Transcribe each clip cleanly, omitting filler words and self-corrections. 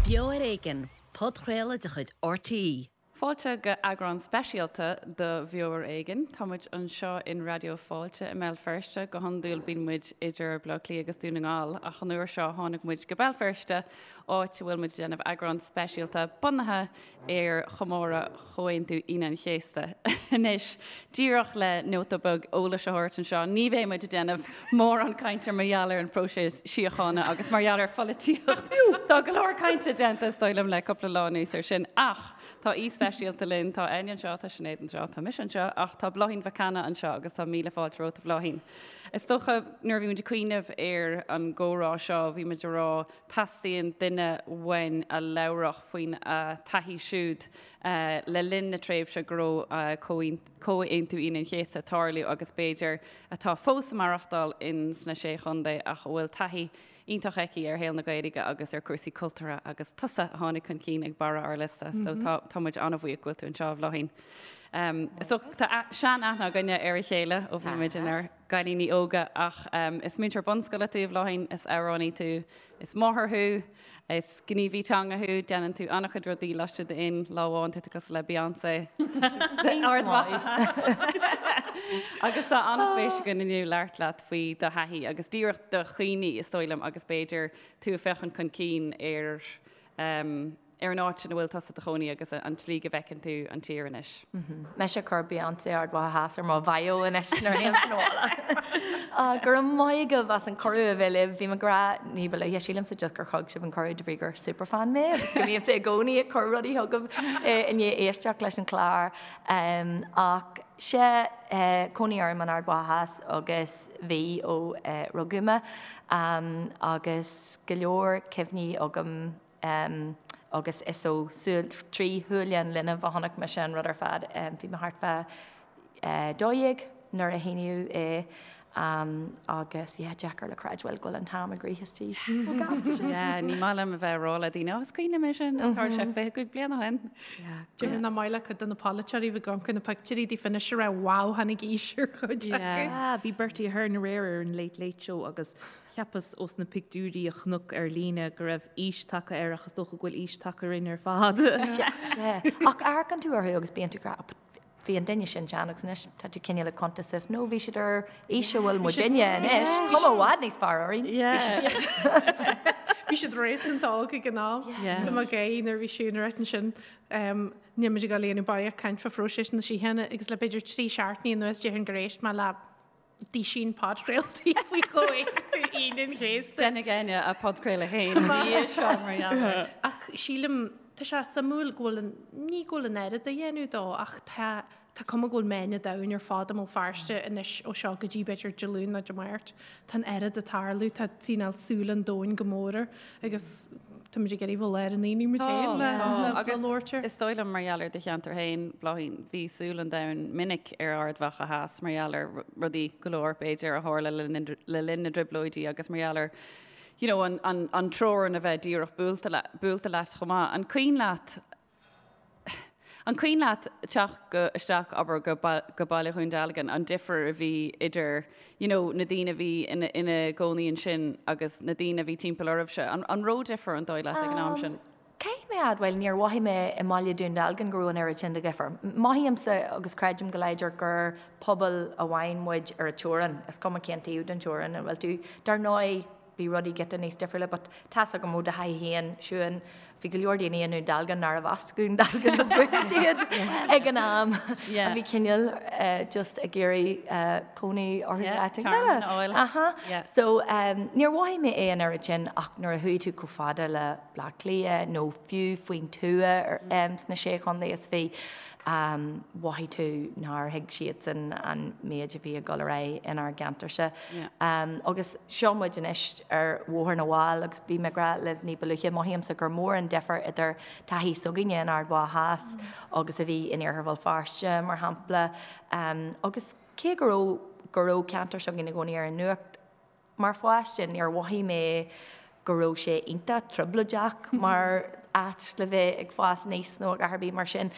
Beo ar Éigean, podchraoladh de chuid RTÉ. Fáilte go eagrán speisialta de Bheo ar Éigean. Tá muid anseo in Raidió Fáilte i mBéal Feirste. Go hiondúil bíonn muid idir Baile Átha Cliath agus Dún na nGall ach an uair seo tháinig muid go Béal Feirste, áit a bhfuil muid ag déanamh eagrán speisialta bunaithe ar chomóradh Chomhaontú Aoine an Chéasta. Anois, díreach le nóta beag eolais a thabhairt anseo, ní bheidh muid ag déanamh mórán cainte mar gheall ar an phróiseas síochána agus mar gheall ar pholaitíocht. Tá go leor cainte déanta, is dóigh liom, le cúpla lá anuas air sin. Ach tá aoi speisialta linn, tá Áine anseo, tá Sinéad anseo, tá mise anseo, ach tá Bláithín Mhic Cana anseo agus tá míle fáilte romhat, a Bhláithín. Is dócha, nuair a bhí muid ag cuimhneamh ar an gcomhrá seo, bhí muid ag rá, Teastaíonn duine uainn a labhródh faoina taithí siúd le linn na tréimhse go raibh Comhaontú Aoine an Chéasta ag tarlú agus b'fhéidir atá fós ag maireachtáil in sna Sé Chontae ach a bhfuil taithí iontach aici ar shaol na Gaeilge agus ar chúrsaí cultúrtha agus tusa a tháinig chun cinn ag barra ár liosta so tá muid an-bhuíoch go bhfuil tú anseo a Bhláithín. So tá sean-aithne againne ar a chéile ó bhí muid inár gcailíní óga ach is múinteoir bunscoile tú, a Bhláithín, is amhránaí tú, is máthair thú, is gníomhaí teanga thú, déanann tú an-chuid rudaí laistigh d'aon lá amháin, tá tú cosúil le Beyoncé Ard Mhacha Theas. Agus tá an-spéis againn inniu labhairt leat faoi do thaithí agus díreach do chuimhní, is dóigh liom, agus b'fhéidir tú ag féachaint chun cinn ar ar an áit ina bhfuil tusa i do chónaí agus an tslí go bhfeiceann tú an tír anois. Mise ag cur Beyoncé Ard Mhacha Theas ar mo bhio anois nuair a théim sa bhaile. Go raibh maith agaibh as an cuireadh a bheith libh. Bhí mé ag rá ní ba luaithe, sílimse just gur thug sibh an cuireadh de bhrí gur superfan mé agus go mbímse i gcónaí ag cur rudaí chugaibh i ndiaidh éisteacht leis an chlár. Ach sea, cónaí orm in Ard Mhacha Theas agus bhí ó rugadh mé agus go leor cuimhní agam agus is ó súil, trí shúile an linbh a chonaic mise an rud ar fad. Bhí mé thart fá 12 nuair a shíníodh é agus yeah, deacair le creidbheáil go bhfuil an t-am ag rith istigh chomh gasta sin. Yeah, ní maith liom a bheith ag rá le daoine, oh, is cuimhin liom é sin, tharla sé 25 bliain ó shin. Déarfainn nach maith le cuid de na polaiteoirí bheith ag amharc ar na pictiúirí daofa anois ag rá wow, tháinig aois ar chuid acu. Yeah, bhí Bertie Ahern aréir ar an Late Late Show agus Cheapas ós na pictiúirí a chonac ar líne go raibh aois tagtha air ach is dócha go bhfuil aois tagtha orainn ar fad. Sea, sea. Ach amharcann tú orthu agus bíonn tú ag rá, but bhí an duine sin sean agus anois tá tú cineál ag cuntas suas, no bhí siad ar aois a bhfuil muidinne anois, cuma i bhfad níos fearr orainn. Bhí siad réasúnta óg ag an am. Tá mé ag gáire nuair a bhí Siún ag ráit ansin, níl muid ag dul a dhéanamh barraíocht caint fá phróiseas na síochána agus le b'fhéidir 3 seachtainí anuas déarfainn gur éist mé le duisín podchraoltaí faoi Chomhaontú Aoine an Chéasta. Déanfaidh Áine a podchraoladh féin ina dhiaidh seo mar gheall air. Ach sílim, tá sé suimiúil go bhfuil an, ní go bhfuil an oiread á dhéanamh dó ach tá, tá cuma go bhfuil meáin an domhain ar fad i mBéal Feirste anois ó seo go dtí b'fhéidir Dé Luain nó Dé Máirt. Tá an oiread ag tarlú, tá cineál súil an domhain go mór air agus táimid ag iarraidh bheith i lár an aonaigh muid féin le labhairt air. Is dóigh liom mar gheall ar do cheantar féin, Bláithín, bhí súil an domhain minic ar Ard Mhacha Theas mar gheall ar rudaí go leor, b'fhéidir, a tharla le linn na dTrioblóidí agus mar gheall ar you know, an, an, an teorainn a bheith díreach buailte buailte leat chomh maith. An cuimhin leat An cuimhin leat teacht go, isteach, abair, go, go Baile Dhún Dealgan, an difear a bhí idir, you know, na daoine a bhí ina, ina gcónaí ansin agus na daoine a bhí timpeall oraibhse? An, an raibh difear, an dóigh leat, ag an am sin? Caithfidh mé a admháil, níor mhothaigh mé i mBaile Dhún Dealgan go raibh an oiread sin de dhifear. Mothaímse agus creidim go láidir gur pobal amháin muid ar an teorainn, is cuma cén taobh den teorainn a bhfuil tú. Dar ndóigh, bhí rudaí giota níos difriúla but tá's agam ó do thaithí féin, Siún, bhí go leor daoine i nDún Dealgan nárbh as Dún Dealgan ó dhúchas iad ag an am a bhí cineál just ag iarraidh cónaí orthu áit éigin eile. Aha. So níor mhothaigh mé é an oiread sin ach nuair a chuaigh tú chomh fada le Bleá Cliath nó fiú faoin tuath sna Sé Chontae is bhí mhothaigh tú nár thuig siadsan an méid a bhí ag dul ar aghaidh inár gceantarsa. Agus seo muid anois ar Bhóthar na bhFál agus bhí mé ag rá libh ní ba luaithe, mothaímse gur mór an difear idir taithí s'againne in Ard Mhacha Theas agus a bhí in Iarthar Bhéal Feirste, mar shampla. Agus cé go raibh go raibh ceantar s'againn i gcónaí ar an nuacht, Mar pháiste, níor mhothaigh mé go raibh sé iontach trioblóideach mar áit le bheith ag fás aníos nó a dhath ar bith mar sin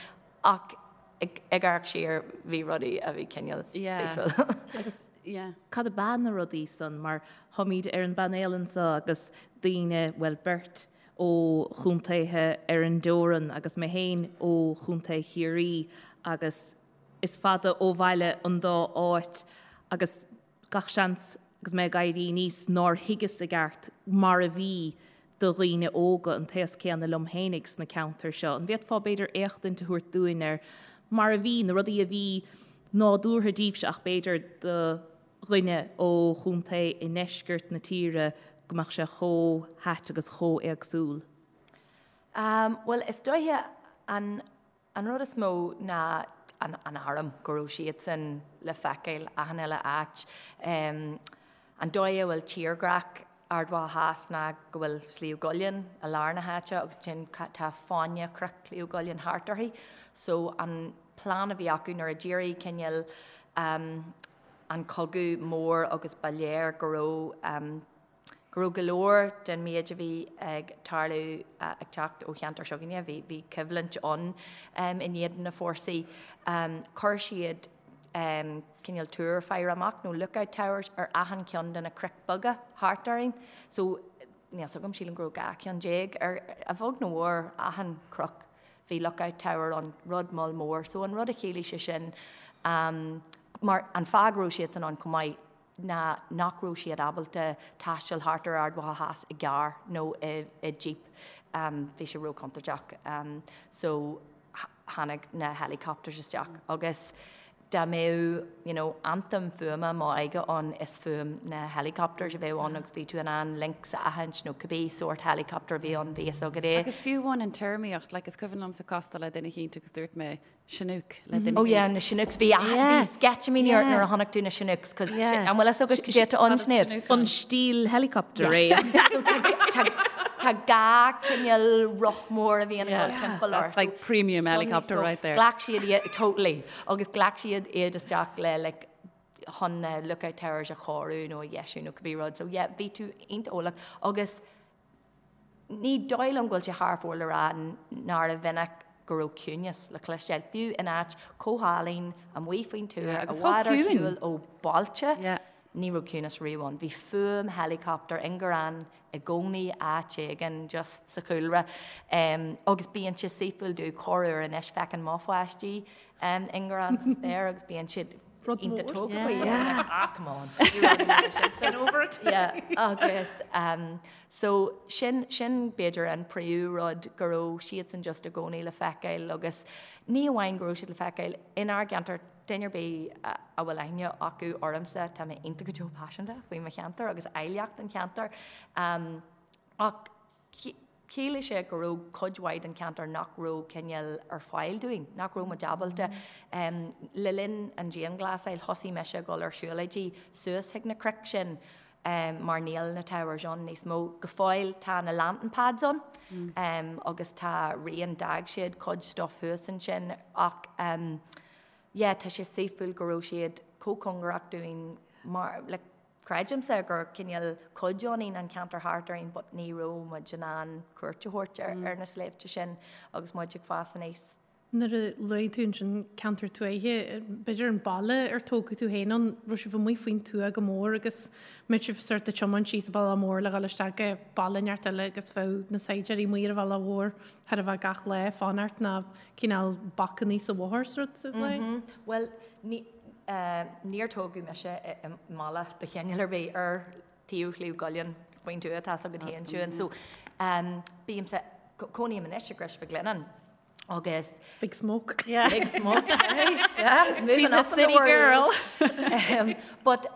ach ag amharc siar bhí rudaí a bhí cineál saoithiúil. Agus cad ab ea na rudaí san mar táimid ar an bpainéal anseo agus daoine, bhuel beirt. ó chontaetha ar an dteorann agus mé féin ó chontae Chiarraí agus is fada ó bhaile an dá áit agus gach seans agus mé ag éirí aníos nár thuigeas i gceart mar a bhí do dhaoine óga an t-aos céanna liom fhéinig sna ceantair seo. An bhféadfá b'fhéidir éachtaint a thabhairt dúinn ar mar a bhí, na rudaí a bhí nádúrtha daoibhse ach b'fhéidir do dhuine ó chontae i ndeisceart na tíre go mbeadh sé chomh hait agus chomh éagsúil? Bhuel, is dóiche an An rud is mó ná an arm, go raibh siadsan le feiceáil achan uile áit. An dóigh a bhfuil tírdhreach Ard Mhacha Theas ná go bhfuil Sliabh gCuillinn i lár na háite agus ansin tá fáinne chnoic Shliabh gCuillinn thart uirthi. So an plean a bhí acu nuair a d'éirigh cineál an cogadh mór agus ba léir go raibh go raibh go leor den méid a bhí ag tarlú ag teacht ó cheantar s'againne. Bhí, bhí coimhlint ann in éadan na fórsaí. Chuir siad cineál túr faire amach nó lookout towers ar achan cheann de na cnoic beaga thart orainn. So, níl 's agam, sílim go raibh 12 ceann ar, a bheag nó a mhór, achan chnoc bhí lookout tower ann, rud moll mór. So an rud a chiallaigh sé sin, mar an fáth go raibh siadsan ann chomh maith, ná nach raibh siad ábalta taisteal thart ar Ard Mhacha Theas i gcarr nó i jeep, bhí sé róchontúirteach. So tháinig na helicopters isteach agus dá mbeadh you know anthem fuaime m'óige ann is fuaim na helicopters a bheadh ann agus bhí tú in ann Lynx a aithint nó cibé sórt helicopter a bhí ann bhí fhios agat é. Agus fiú amháin an téarmaíocht, like is cuimhin liomsa castáil le duine eicínt agus dúirt mé Chinook le duine Oh yeah, na Chinooks. Bhí bhí sceitimíní ort nuair a chonaic tú na Chinooks cos an bhfuil fhios agat cad é atá ann, Sinéad? An stíl helicopter é. So tá dhá cineál roth mór a bhíonn ag dul timpeall ort. That's like premium helicopter right there. Ghlac siad iad, totally, agus ghlac siad iad isteach le like chun na lookout towers a chóiriú nó a dheisiú nó cibé rud. So yeah, bhí tú iontach eolach agus Ní dóigh liom go bhfuil sé thar fóir le rá nárbh mhinic go raibh ciúnas le cloisteáil, fiú in áit chomh hálainn amuigh faoin tuath, i bhfad ar shiúl ó bhailte, ní raibh ciúnas riamh ann. Bhí fuaim helicopter ingearán i gcónaí áit éigin just sa chúlra. Agus bíonn sé saoithiúil domh corruair anois, feiceann mo pháistí ingearán sa spéir agus bíonn siad Rud iontach mór. tógtha faoi. Yeah. Ah, come on. Ní rud mór sin. Get over it. Yeah, agus um, so sin, sin b'fhéidir an príomh rud go raibh siadsan just i gcónaí le feiceáil agus ní amháin go raibh siad le feiceáil inár gceantar, duine ar bith a, a bhfuil aithne acu ormsa, tá mé iontach go deo paiseanta faoi mo cheantar agus áilleacht an cheantair. Um, ach Chiallaigh sé go raibh cuid mhaith den cheantar nach raibh cineál ar fáil dúinn, nach raibh muid ábalta. Le linn an dianghlasáil thosaigh mise ag dul ar siúlóidí suas chuig na cnoic sin mar níl na towers ann níos mó. Go fóill tá na lantern pads ann agus tá rian, d'fhág siad cuid stuff thuas ansin ach yeah tá sé saoithiúil go raibh siad chomh cóngarach dúinn mar like, Creidimse gur cineál cuid ionainn an ceantar thart orainn but ní raibh muid in ann cuairt a thabhairt ar na sléibhte sin agus muid ag fás aníos. Nuair a luaigh tú ansin ceantar tuaithe, b'fhéidir an baile ar tógadh tú féin ann, raibh sibh amuigh faoin tuath go mór agus mbeadh sibh sort ag tiomáint síos an bealach mór le dhul isteach go baile inteacht eile agus bheadh na saighdiúirí amuigh ar an bhealach mhór chóir a bheith gach lá ag fanacht nó cineál bacannaí sa bhóthar is rud a bheith. Bhuel, ní. Níor tógadh mise i mbaile de chineál ar bith ar taobh Shliabh gCuillinn faoin tuath, tá 'fhios agat féin Siún. So bímse, cónaím anois i gCrois Mhic Lionnáin agus. Big smoke. Yeah. Big smoke, eh? Yeah, moving She's a up in the city world. girl. But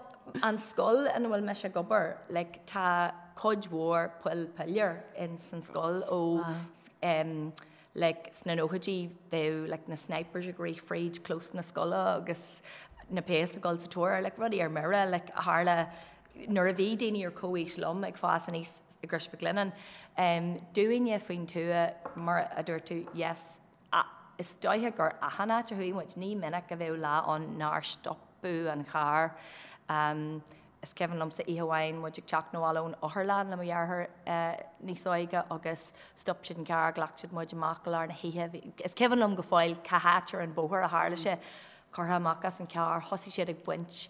an scoil ina bhfuil mise ag obair, like tá cuid mhór poill piléar in san scoil ó like sna nóchaidí bheadh like na snipers ag rith fríd clós na scoile agus na péas ag dul sa tóir air, like rudaí ar mire like a tharla nuair a bhí daoine ar comhaois liom ag fás aníos i gCrois Mhic Lionnáin. Um, dúinne faoin tuath mar a dúirt tú, yes, is dóiche gur achan áit a chuaigh muid, ní minic a bheadh lá ann nár stopadh an carr. Um, Is cuimhin liomsa oíche amháin muid ag teacht 'na bhaile ón otharlann le mo dheartháir níos óige agus stop siad an carr, ghlac siad muid amach i lár na hoíche. Is cuimhin liom go fóill cá háit ar an bóthar a tharla sé. Curtha amach as an carr, thosaigh siad ag baint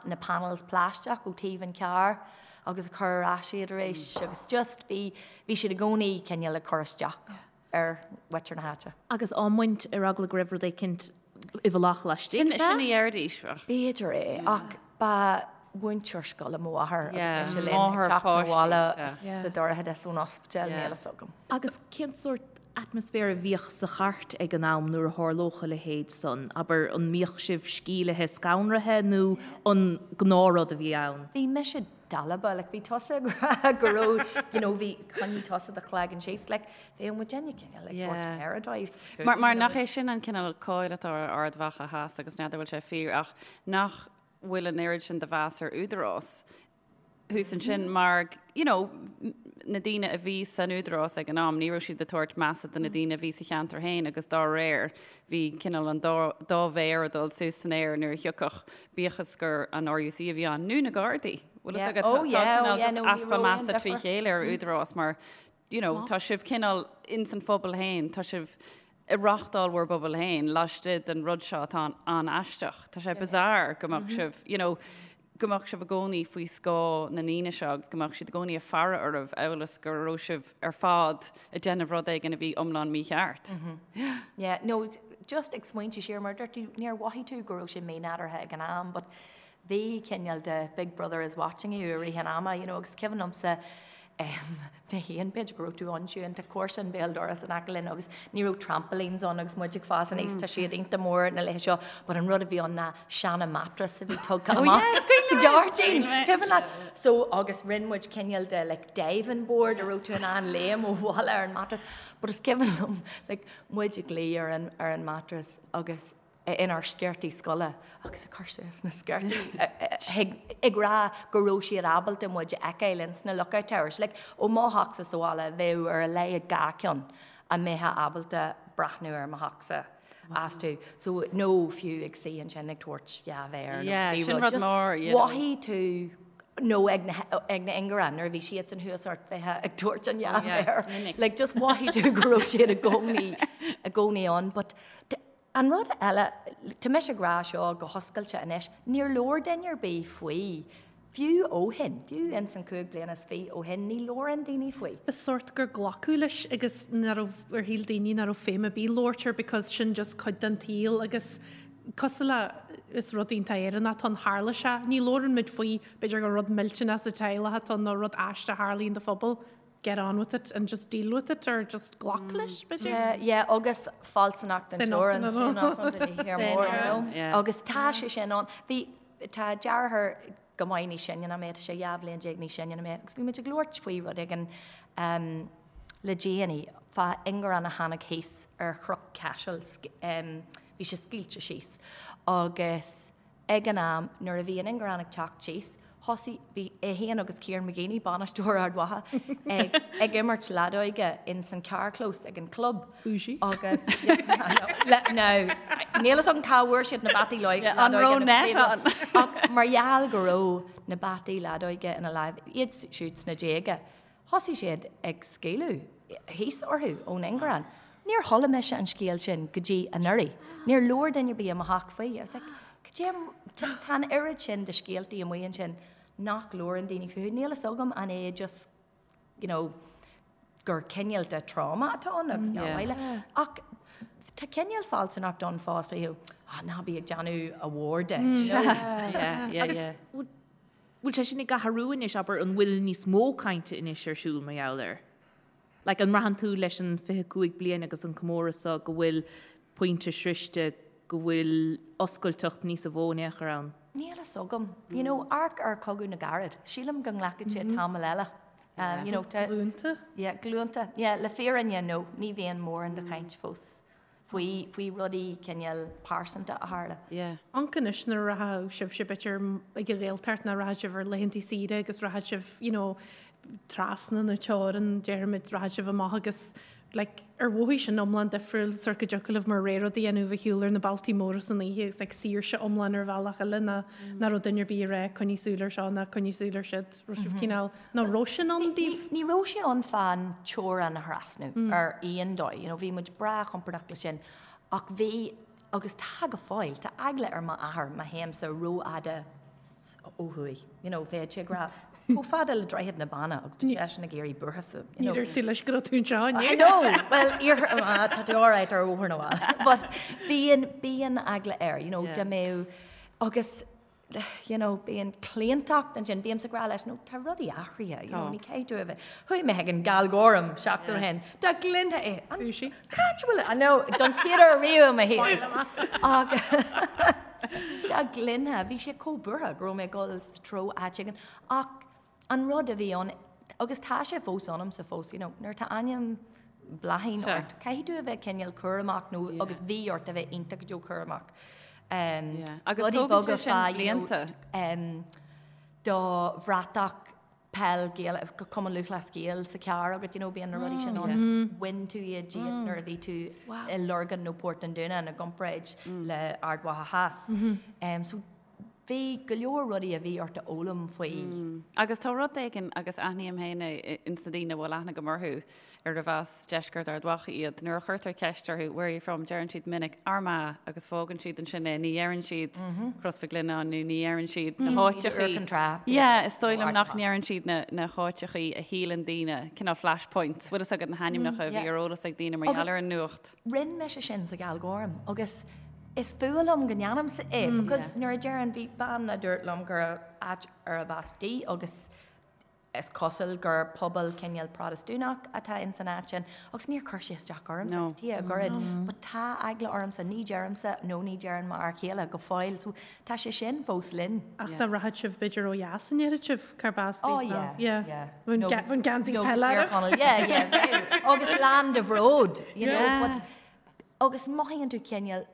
na panels plaisteach ó taobh an carr. agus ag cur ar ais iad arís agus just bhí, bhí siad i gcónaí cineál ag cur isteach ar mhuintir na háite. Agus á mbaint ar eagla go raibh rud éicint i bhfolach laistigh de? Sin a deiridís. B'fhéidir é, ach ba mhúinteoir scoile mo mháthair agus ise linn ag teacht 'na bhaile sa dorchadas ón ospidéal, níl fhios agam. Agus cén sórt atmaisféar a bhíodh sa chairt ag an am nuair a tharlódh a leithéid san? Abair, an mbíodh sibh sceimhlithe scanraithe nó an gnáthrud a bhí ann? Bhí mise dalba, like bhí tusa ag rá go raibh, you know, bhí, choinnigh tusa do chloigeann síos, like bheadh muidinne cineál ag tabhairt méara dóibh. Mar, mar nach é sin an cineál cáil atá ar Ard Mhacha Theas agus n'fheadar bhfuil sé fíor ach nach bhfuil an oiread sin de mheas ar údarás thuas ansin mar, you know, na daoine a bhí san údarás ag an am, ní raibh siad ag tabhairt measa do na daoine a bhí sa cheantar féin agus dá réir bhí cineál an dá, dá mhéar ag dul suas san aer nuair a thiocfadh, bíodh is gur an RUC a bhí ann nó na Gardaí. Bhfuil fhios agat, tá cineál just easpa measa trí chéile ar údarás mar, you know, tá sibh cineál ins an phobal féin, tá sibh ag reáchtáil bhur bpobal féin laistigh den rud seo atá an-aisteach. Tá sé bizarre go mbeadh sibh, you know, go mbeadh sibh i gcónaí faoi scáth na ndaoine seo agus go mbeadh siad i gcónaí ag faire oraibh amhail is go raibh sibh ar fad ag déanamh rud éigin a bhí iomlán mícheart. Yeah, no, just ag smaointiú siar mar a dúirt tú, níor mhothaigh tú go raibh sé mínádúrtha ag an am, but bhí cineál de big brother is watching you i rith an ama, you know, agus cuimhin liomsa mé féin, b'fhéidir go raibh tú ann Siún, tá comharsan béal dorais in aice linn agus ní raibh trampolines ann agus muid ag fás aníos, tá siad iontach mór na laethe seo, but an rud a bhí ann ná seana mattress a bhí tugtha amach sa ghairdín, cuimhin leat? So agus rinne muid cineál de like diving board a raibh tú in ann léim ó bhalla ar an mattress, but is cuimhin liom like muid ag luí ar an ar an mattress agus inár sciortaí scoile agus ag cur suas na sciortaí ag rá go raibh siad ábalta muid a fheiceáil ins na lookout towers. Like, ó mo theachsa sa bhaile bheadh ar a laghad 2 ceann a mbeifeá ábalta breathnú ar mo theachsa astu. So, nó fiú ag suí ansin ag tabhairt dhá mhéar nó Yeah, cibé sin rud. rud Just mór, you know. mhothaigh tú nó ag na ag na ingearáin nuair a bhí siadsan thuas ort bheifeá ag tabhairt an dhá Oh, yeah, mhéar. minic. Like, just mhothaigh tú go raibh siad i gcónaí i gcónaí ann. But An rud eile, tá mise ag rá seo go hoscailte anois, níor labhair duine ar bith faoi, fiú ó shin, fiú ins an chúig bliana is fiche ó shin, ní labhrann daoine faoi. Ba sórt gur glacadh leis agus nach raibh, ar shíl daoine nach raibh feidhm ar bith labhairt air because sin just cuid den tsaol agus cosúil le, is rud iontach Éireannach atá ann, tharla sé, ní labhrann muid faoi, b'fhéidir gur rud millteanach sa teaghlach atá ann nó rud aisteach a tharlaíonn do phobal, get on with it and just deal with it or just glac leis, b'fhéidir. Yeah, yeah, agus fealsúnacht an teorann, mór, you know. Yeah. Agus tá sé sin ann. Bhí, tá deartháir go maith níos sine ná mé, tá sé 12 bhliain níos sine ná mé, agus bhí muid ag labhairt faoi rud éigin um, le déanaí, fá ingearán a tháinig thíos ar Chnoc Caisil, um, bhí sé scaoilte síos. Agus Ag an am nuair a bhí an ingearán ag teacht síos, thosaigh, bhí é féin agus Kieran McGeeney, bainisteoir Ard Mhacha, ag ag imirt leadóige ins an carrchlós ag an club. Bougie. Agus, le, now, níl fhios agam cá bhfuair siad na bataí Yeah, an leadóige raibh net ann? Ach mar gheall go raibh na bataí leadóige ina láimh, iad siúd sna déaga, Thosaigh siad ag scaoileadh thíos orthu ón ingearán. Níor chuala mise an scéal sin go dtí anuraidh. Níor labhair duine ar bith i mo theach faoi. I was like, cad é, tá an oiread sin de scéaltaí amuigh ansin nach labhrann daoine fúthu. Níl fhios agam an é just, you know, gur cineál de trauma atá ann agus nach maith le. Ach tá cineál fealsúnacht ann fosta, you know, ah, ná bí ag déanamh a mhór de. you know. Yeah, yeah, yeah. Bhfuil sé sin ag athrú anois, abair, an bhfuil níos mó cainte anois ar siúl mar gheall air? Like, an mbraitheann tú leis an 25 bliain agus an comóradh seo go bhfuil pointe sroiste, go bhfuil oscailteacht níosa mhó in aon chor ann? Níl fhios agam. You know, amharc ar Chogadh na gCarad. Sílim go nglacfaidh sé tamall eile. Um, you know, tá- Glúnta. Yeah, glúnta. Yeah, le fírinne, no, ní bhíonn mórán de chaint fós. faoi faoi rudaí cineál pearsanta a tharla. Yeah. Amharc anois nuair a rachadh sibhse b'fhéidir ag an Ghaeltacht nó rachadh sibh ar laethantaí saoire agus rachadh sibh you know trasna na teorann déarfaimid rachadh sibh amach agus like ar mhothaigh sin iomlán difriúil sort go dtiocfadh libh mar ré rud a dhéanamh a shiúl ar na bealtaí móra san oíche agus like saoirse iomlán ar bhealach eile ná nach raibh duine ar bith ag rá coinnigh súil ar seo ná coinnigh súil ar siúd raibh sibh cineál Nó raibh sin ann daoibh? Ní raibh sé ann fán teorainn a thrasnú ar aon dóigh, you know, bhí muid breá compordach leis sin ach bhí, agus tá go fóill, tá eagla ar m'athair má théimse rófhada ó thuaidh, you know, bheadh sé ag rá. Chomh fada le Droichead na Banna agus tá seisean ag éirí buartha fúm. Ní dúirt tú leis go raibh tú anseo inniu. I know! Well, iarthar, ah, tá tú alright ar Bhóthar na bhFál. But bíonn, bíonn eagla air, you know, dá mbeadh, agus, you know, bíonn claontacht ansin, bímse ag rá leis, no, tá rudaí athraithe, you know, ní caithfidh tú a bheith, chuaigh mé chuig an gCeolchoirm seachtain ó shin, dá gcluinfeá é, an, cá háit a bhfuil, I know, don chéad uair riamh i mo shaol. Ach, dá gcluinfeá, bhí sé chomh buartha go raibh mé ag dul sa treo áit éigin, ach an rud a bhí ann, agus tá sé fós ionamsa fós, you know, nuair atá ainm Bláithín ort, caithfidh tú a bheith cineál cúramach nó agus bhí ort a bheith iontach go deo cúramach. Agus Rudaí tógann beaga sé sin fá, you know, blianta. do bhratach peil Gael, Cumann Lúthchleas Gael sa charr agat, you know, bíonn na rudaí sin ann. Bhain tú iad díot nuair a bhí tú i Lurgan nó Port an Dúnáin i gcomparáid le Ard Mhacha Theas. So bhí go leor rudaí a bhí ort a fhoghlaim faoi. Agus tá rud éigin, agus aithním féin é ins na daoine a bhfuil aithne agam orthu, arbh as deisceart Ard Mhacha iad, nuair a chuirtear ceist orthu where are you from, deireann siad minic Armagh agus fágann siad ansin é, ní dheireann siad Crois Mhic Lionnáin nó ní dheireann siad na háiteachaí. Yeah, is dóigh liom nach ndeireann siad na háiteachaí a shíleann daoine, cineál flash points, bhfuil fhios agat na hainmneacha a bhí ar eolas ag daoine mar gheall ar an nuacht. Rinne mise sin sa gCeolchoirm agus is fuath liom go ndéanaimse é because nuair a deireann, bhí bean a dúirt liom gur áit arb as di agus is cosúil gur pobal cineál Protastúnach atá ins an áit sin agus níor chuir sé isteach ormsa go dtí a ghoirid but tá eagla ormsa, ní deirimse nó ní deireann m'fhear céile go fóill so tá sé sin fós linn. Ach dá rachadh sibh b'fhéidir ó dheas an ndéarfadh sibh cárb as Oh daoibh nó yeah, yeah. yeah. Bheadh No, bheadh geansaí no, peile Tír oraibh. Chonaill, yeah, yeah, bheadh. Agus lán de bhród, you know, Yeah. but agus mothaíonn tú cineál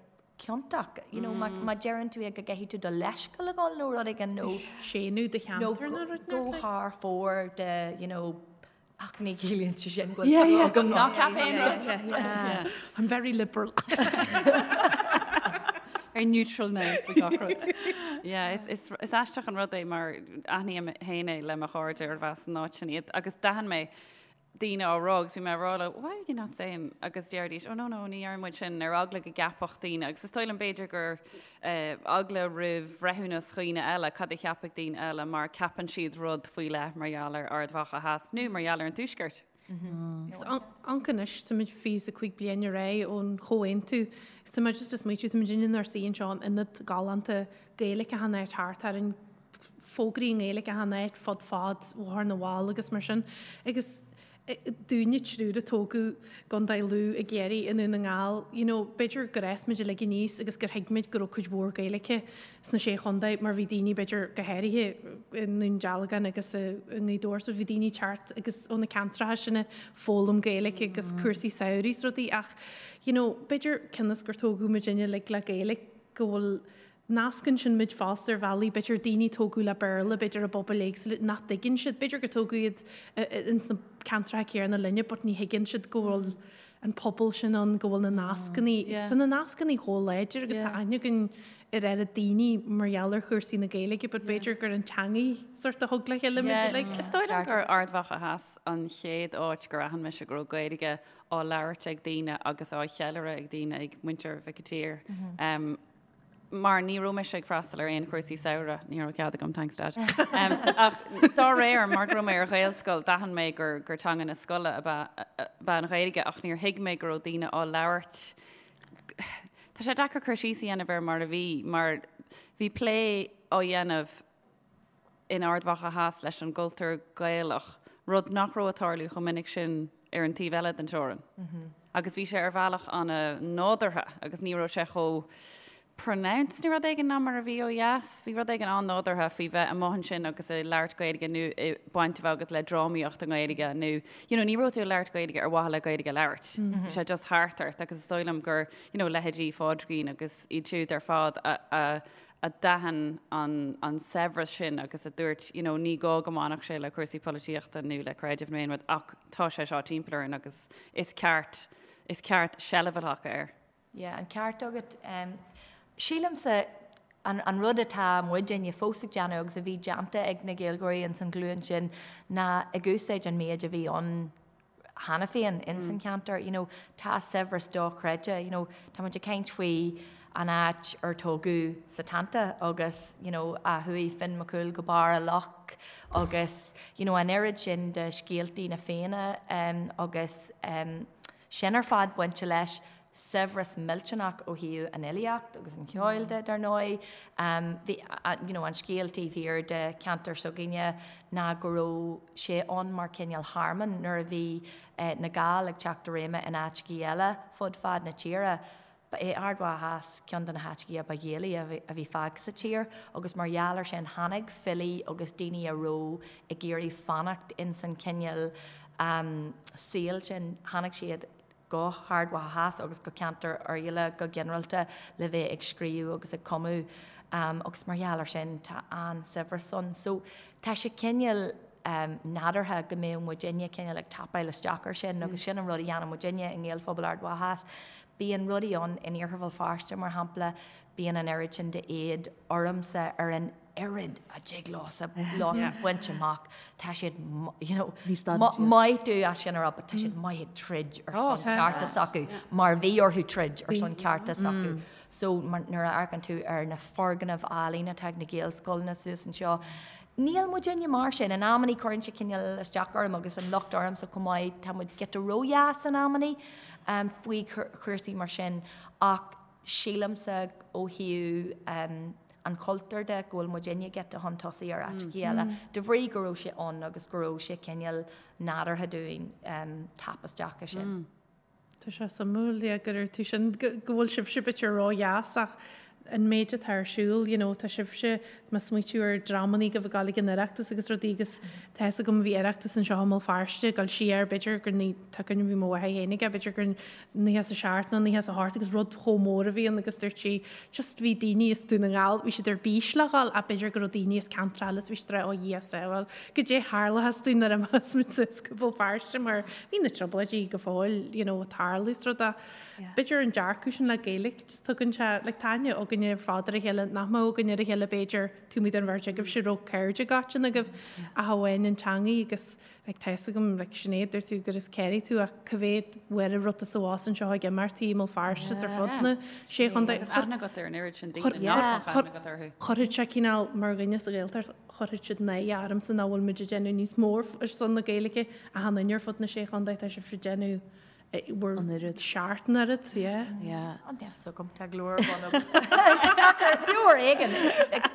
ciontach, you know, má má deireann tú é go gcaithfidh tú do leithscéal a ghabháil nó rud éigin nó Séanadh do nó cheantar nó rud go inteacht. thar fóir de, you know, ach ní chiallaíonn sé sin go bhfuil Yeah, yeah. agam Ná ceap aon rud. Yeah. I'm very liberal. Very neutral now faoi gach rud. Yeah, is, is, is aisteach an rud é mar aithním féin é le mo chairde arbh as an áit sin iad agus d'aithin mé daoine á rá agus bhí mé ag rá leo why are you not saying agus deiridís oh no no ní deireann muid sin ar eagla go gceapfadh daoine agus is dóigh liom b'fhéidir gur eh, eagla roimh bhreithiúnas dhaoine eile cad a cheapfadh daoine eile mar ceapann siad rud faoi leith mar gheall ar Ard Mhacha Theas nó mar gheall ar an Tuaisceart. Agus amharc anois, táimid 25 bliain ar aghaidh ón chomhaontú. Agus tá mé just ag smaoitiú, táimid inár suí anseo in ionad galánta Gaeilge achan áit thart orainn, fógraí i nGaeilge achan áit fud fad Bhóthar na bhFál agus mar sin. Agus dúinne triúr a tógadh i gContae Lú, i gCiarraí, i nDún na nGall, you know, b'fhéidir gur fhás muid uilig aníos agus gur thuig muid go raibh cuid mhór Gaeilge sna Sé Chontae mar bhí daoine b'fhéidir go háirithe i nDún Dealgan agus i nGaoth Dobhair so bhí daoine ag teacht agus ó na ceantracha sin ag foghlaim Gaeilge agus cúrsaí samhraidh is rudaí ach you know, b'fhéidir cionn is gur tógadh muidinne uilig le Gaeilge go bhfuil Nascann sin muid fosta ar bhealaí, b'fhéidir daoine a tógadh le Béarla, b'fhéidir i bpobail éagsúla nach dtuigeann siad, b'fhéidir gur tógadh iad ins na ceantracha céanna linne but ní thuigeann siad go bhfuil an pobal sin ann, go bhfuil na nascannaí, agus tá na nascannaí chomh láidir agus tá aithne againn ar oiread daoine mar gheall ar chúrsaí na Gaeilge but b'fhéidir gur an teangaidh sort a thug le chéile muid uilig. Is dóigh liom gur Ard Mhacha Theas an chéad áit gur aithin mise go raibh Gaeilge á labhairt ag daoine agus á cheiliúradh ag daoine, ag muintir Mhic an tSaoir. Mar ní raibh mise ag freastal ar aon chúrsaí samhraidh, ní raibh cead agam, thanks Dad. Ach dá réir, mar go raibh mé ar Ghaelscoil, d'aithin mé gur gur teanga na scoile ab ea ab ea an Ghaeilge ach níor thuig mé go raibh daoine á labhairt. Tá sé deacair cur síos a dhéanamh ar mar a bhí, mar bhí plé á dhéanamh in Ard Mhacha Theas leis an gcultúr Gaelach, rud nach raibh ag tarlú chomh minic sin ar an taobh eile den teorainn. Agus bhí sé ar bhealach an-nádúrtha agus ní raibh sé chomh pronounced nó rud éigin ná mar a bhí ó dheas. Bhí rud éigin an-nádúrtha faoi bheith amuigh ansin agus ag labhairt Gaeilge nó baint a bheith agat le drámaíocht i nGaeilge nó you know ní raibh tú ag labhairt Gaeilge ar mhaithe le Gaeilge a labhairt. Bhí sé just thart ort agus is dóigh liom gur you know leithéidí Phádraigín agus iad siúd ar fad a a a d'aithin an saibhreas sin agus a dúirt, you know, ní gá go mbainfeadh sé le cúrsaí polaitíochta nó le creideamh nó aon rud ach tá sé seo timpeall orainn agus is ceart, is ceart seilbh a ghlacadh air. Yeah, an ceart agat. Sílimse an, an rud atá muidinne fós ag déanamh agus a bhí déanta ag na Gaeilgeoirí ins an ghlúin sin ná ag úsáid an méid a bhí ann cheana féin ins an cheantar, you know, tá saibhreas dochreidte, you know, tá muid ag caint faoi. an áit ar tógadh Setanta agus you know a chuaigh Finn Mac Cumhaill go barr a loch agus you know an oiread sin de scéaltaí na Fianna agus sin ar fad bainte leis. Saibhreas millteanach ó thaobh an fhilíocht agus an cheoil de, dar ndóigh. Bhí you know an scéal taobh thiar de cheantar s'againne ná go raibh sé ann mar cineál thearmann nuair a bhí na Gaill ag teacht i réime in áiteachaí eile fud fad na tíre. Ba é Ard Mhacha Theas ceann de na háiteachaí a ba Ghaelaí a bhí fágtha sa tír agus mar gheall ar sin tháinig filí agus daoine a raibh ag iarraidh fanacht ins an chineál saoil sin, tháinig siad go hArd Mhacha Theas agus go ceantar Oirialla go ginearálta le bheith ag scríobh agus ag cumadh agus mar gheall ar sin tá an-saibhreas ann. So tá sé cineál nádúrtha go mbeadh muidinne cineál ag tapáil isteach ar sin agus sin an rud a dhéanann muidinne i nGaelphobal Ard Mhacha Theas. Bíonn rudaí ann in Iarthar Bhéal Feirste, mar shampla, bíonn an oiread sin d'éad ormsa ar an oiread a dtig leosa baint amach. Tá siad, you know, maith domh as sin a rá, but tá siad maith ag troid ar son cearta s'acu, mar bhí orthu troid ar son cearta s'acu. So nuair a amharcann tú ar na foirgnimh álainn atá ag na Gaelscoileanna suas anseo, níl muidinne mar sin. In amannaí cuireann sé cineál isteach orm agus an locht ormsa chomh maith, tá muid giota ródheas in amannaí faoi chúrsaí mar sin ach sílimse ó thaobh an chultúir de go bhfuil muidinne giota chun tosaigh ar áiteachaí eile de bhrí go raibh sé ann agus go raibh sé cineál nádúrtha dúinn tap isteach i sin. Tá sé suimiúil, yeah, go raibh tú sin, go bhfuil sibhse b'fhéidir ródheas ach an méid atá ar siúl, you know, tá sibhse, má smaoitiú ar dreamannaí go bhfuil ag gabháil ag an Oireachtas agus rudaí agus tá fhios agam bhí Oireachtas anseo i mBéal Feirste ag dul siar, b'fhéidir gur ní, tá cuimhne bhí mo mháthair féin aige, b'fhéidir gur 97 nó 98 agus rud chomh mór a bhí ann agus dúirt sí just bhí daoine as Dún na nGall, bhí siad ar bís le dhul ach b'fhéidir go raibh daoine as ceantar eile is bhí siad ag rá ó Dhia sábháil, goidé tharlóchas dúinn nuair a imeos muid suas go Béal Feirste mar bhí na trioblóidí go fóill you know, ag tarlú is rud a b'fhéidir an dearcadh sin le Gaeilge just tugann sé like tá aithne againne ar fad ar a chéile nach mbeadh againn ar a chéile b'fhéidir taobh amuigh den bheirt agaibhse raibh cairde go agaibh ach amháin an teangaidh agus like tá fhios agam like Sinéad dúirt tú gur as Ciarraí tú ach cá mhéad uair a raibh tú suas anseo ag imeachtaí i mBéal Feirste is ar fud na sé chontae. Agus aithne agat ar an oiread sin daoine nach mbeadh aithne agat orthu. Chuirfeadh sé cineál mar dhuine sa Ghaeltacht chuirfeadh siad náire ormsa nach bhfuil muid ag déanamh níos mó ar son na Gaeilge achan duine ar fud na sé chontae tá sibh ag déanamh bhur An oiread. seart an oiread, yeah. Yeah. An deas agam tá glór bun agam. Beo ar éigean.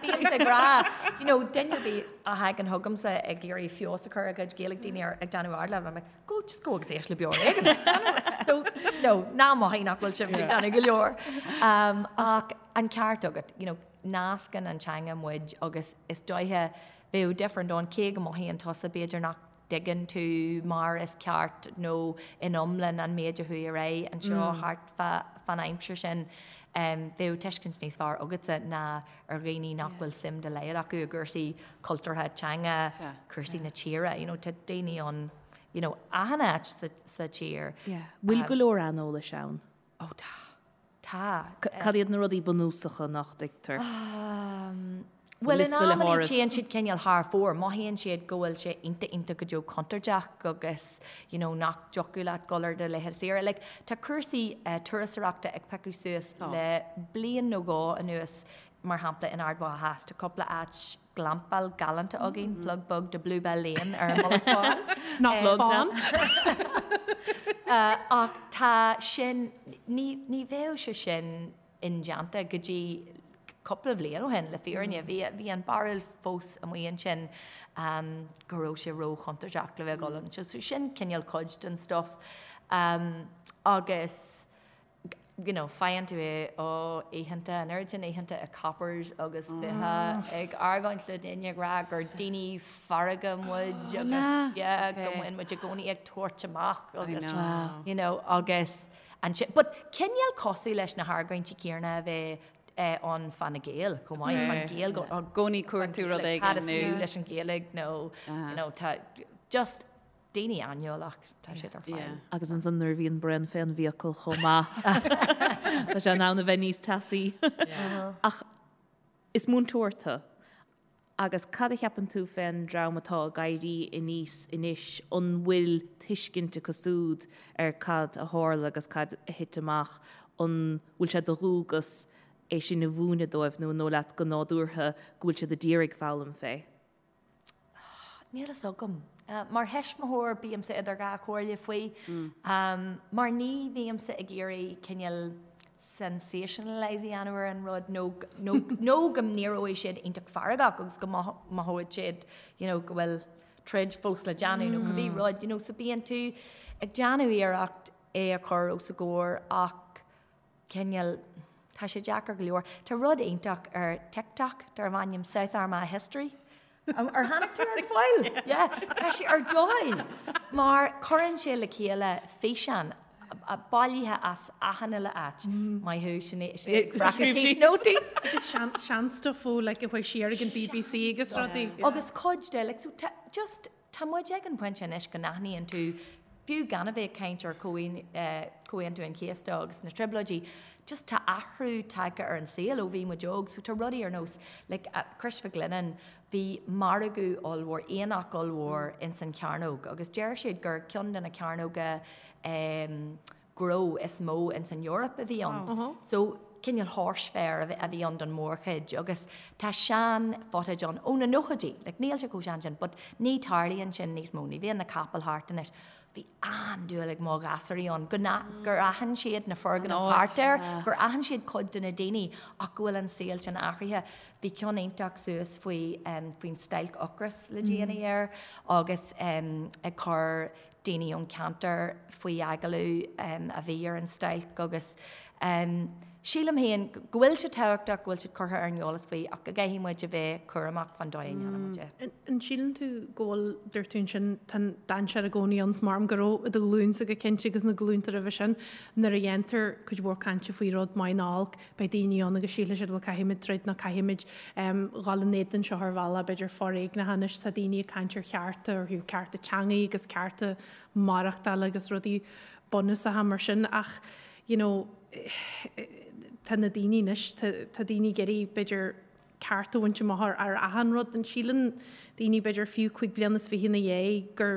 Bímse ag rá, you know, duine ar bith a thagann chugamsa ag iarraidh feabhas a chur ar a gcuid Gaeilge daoine ar ag déanamh ardleibhéil, I'm like, go, just go agus éist le Beo ar Éigean. So, no, ná mothaigh nach bhfuil sibh ag déanamh go leor. Um, ach an ceart agat, you know, nascann an teanga muid agus is dóiche bheadh difear an domhain cé go mothaíonn tusa b'fhéidir nach dtuigeann tú mar is ceart nó in iomlán an méid a chuaigh ar aghaidh anseo thart fán aimsir sin, bheadh tuiscint níos fearr agatsa ná ar dhaoine nach bhfuil suim dá laghad acu i gcúrsaí cultúrtha, teanga, cúrsaí na tíre. You know, tá daoine ann, you know, achan áit sa tír. Bhfuil go leor aineolais ann? Ó tá. Tá. Cad iad na rudaí bunúsacha nach dtuigtear? Bhuel, in amannaí téann siad cineál thar fóir. Mothaíonn siad go bhfuil sé iontach iontach go deo contúirteach agus you know nach dtiocfadh leat dul ar do laethanta saoire. Like, tá cúrsaí turasóireachta ag piocadh suas le bliain nó dhó anuas, mar shampla in Ard Mhacha Theas, tá cúpla áit glampáil galánta againn, plug beag do Bluebell Lane ar an Mullach Bán. Nach Bán! Ach tá sin, ní, ní bheadh sé sin indéanta go dtí cúpla bhliain ó shin, le fírinne. Bhí, bhí an barúil fós amuigh ansin go raibh sé ró-chontúirteach le bheith ag dul anseo. So sin cineál cuid den stuff. Agus you know, faigheann tú é ó oícheanta, an oiread sin oícheanta i Coppers agus bheifeá ag argóint le daoine ag rá gur daoine fearga muid agus yeah, go mbíonn muid i gcónaí ag tabhairt amach agus you know, agus ansin, but cineál cosúil leis na hargóintí céanna a bheith ann fá na Gaeil chomh maith, fán Ghaeilge, i gcónaí cuartú rud éigin cad is fiú leis an Ghaeilge nó you know, tá just daoine aineolach, tá siad ar fáil. Agus ansan nuair a bhíonn braon fén bhfiacail chomh maith, tá sé in ann a bheith níos teasaí. Ach is múinteoir tú, agus cad a cheapann tú fén dream atá ag éirí aníos anois, an bhfuil tuiscint acu súd ar cad a tharla agus cad a thit amach, an bhfuil sé de dhualgas? é sin a mhúineadh dóibh nó an dóigh leat go nádúrtha go bhfuil siad a d'iarraidh foghlaim fé? Níl fhios agam. Mar thuismitheoir bímse idir dhá chomhairle faoi. Mar ní bhímse ag iarraidh cineál sensationalise a dhéanamh ar an rud nó nó go n-éireoidh siad iontach feargach agus go mothóidh siad you know go bhfuil troid fós le déanamh nó cibé rud you know so bíonn tú ag déanamh iarracht é a chur os a gcomhair ach cineál, tá sé deacair go leor. Tá rud iontach ar TikTok darb ainm South Armagh History. Ar tháinig tú air go fóill? Yeah. Tá sé ar dóigh mar cuireann sé le chéile físeán bailithe as achan uile áit. Maith thú, Sinéad, ag breacadh síos nótaí. Agus sean-stuff ó like a chuaigh siar ag an BBC agus rudaí. Agus cuid de, like, so just Tá muid ag an bpointe anois go n-aithníonn tú, fiú gan a bheith ag caint ar Chomhaontú an Chéasta agus na Trioblóidí, just tá athrú tagtha ar an saol ó bhí muid óg. So tá rudaí ar nós, like, Crois Mhic Lionnáin, bhí margadh ollmhór, aonach ollmhór ins an chearnóg agus deir siad gur ceann de na cearnóga em, gnó is mó ins an Eoraip a bhí ann. So cineál horse fair a bhí ann don mórchuid agus tá sean footage ann ó na nóchaidí, like níl sé chomh sean sin but ní tarlaíonn sin níos mó, ní bhíonn na capaill thart anois. Bhí an-dúil ag mo ghasúraí ann go gur aithin siad na foirgnimh thart air, gur aithin siad cuid de na daoine ach go bhfuil an saol sin athraithe. Bhí ceann iontach suas faoi faoin stailc ocrais le déanaí air agus ag cur daoine ón cheantar faoi agallamh a bhí ar an stailc agus sílim féin go bhfuil sé tábhachtach go bhfuil siad curtha ar an eolas faoi ach go gcaithfidh muid a bheith cúramach fán dóigh a ndéanann muid é. An síleann tú go bhfuil, dúirt tú ansin, tá an dainséar i gcónaí ann, is maith liom go raibh i do ghlúinsa go cinnte agus na glúnta roimhe sin, nuair a dhéantar cuid mhór cainte faoi rud maith nó olc, beidh daoine ann agus sílfidh siad bhuel caithfimid troid nó caithfimid dhul in éadan seo ar bhealach b'fhéidir foréigneach anois tá daoine ag caint ar chearta ar thaobh cearta teangaí agus cearta maireachtála agus rudaí bunúsacha mar sin ach you know tá na daoine anois tá daoine ag iarraidh b'fhéidir ceart a bhaint amach ar achan rud an síleann daoine b'fhéidir fiú 25 bliana ina dhiaidh gur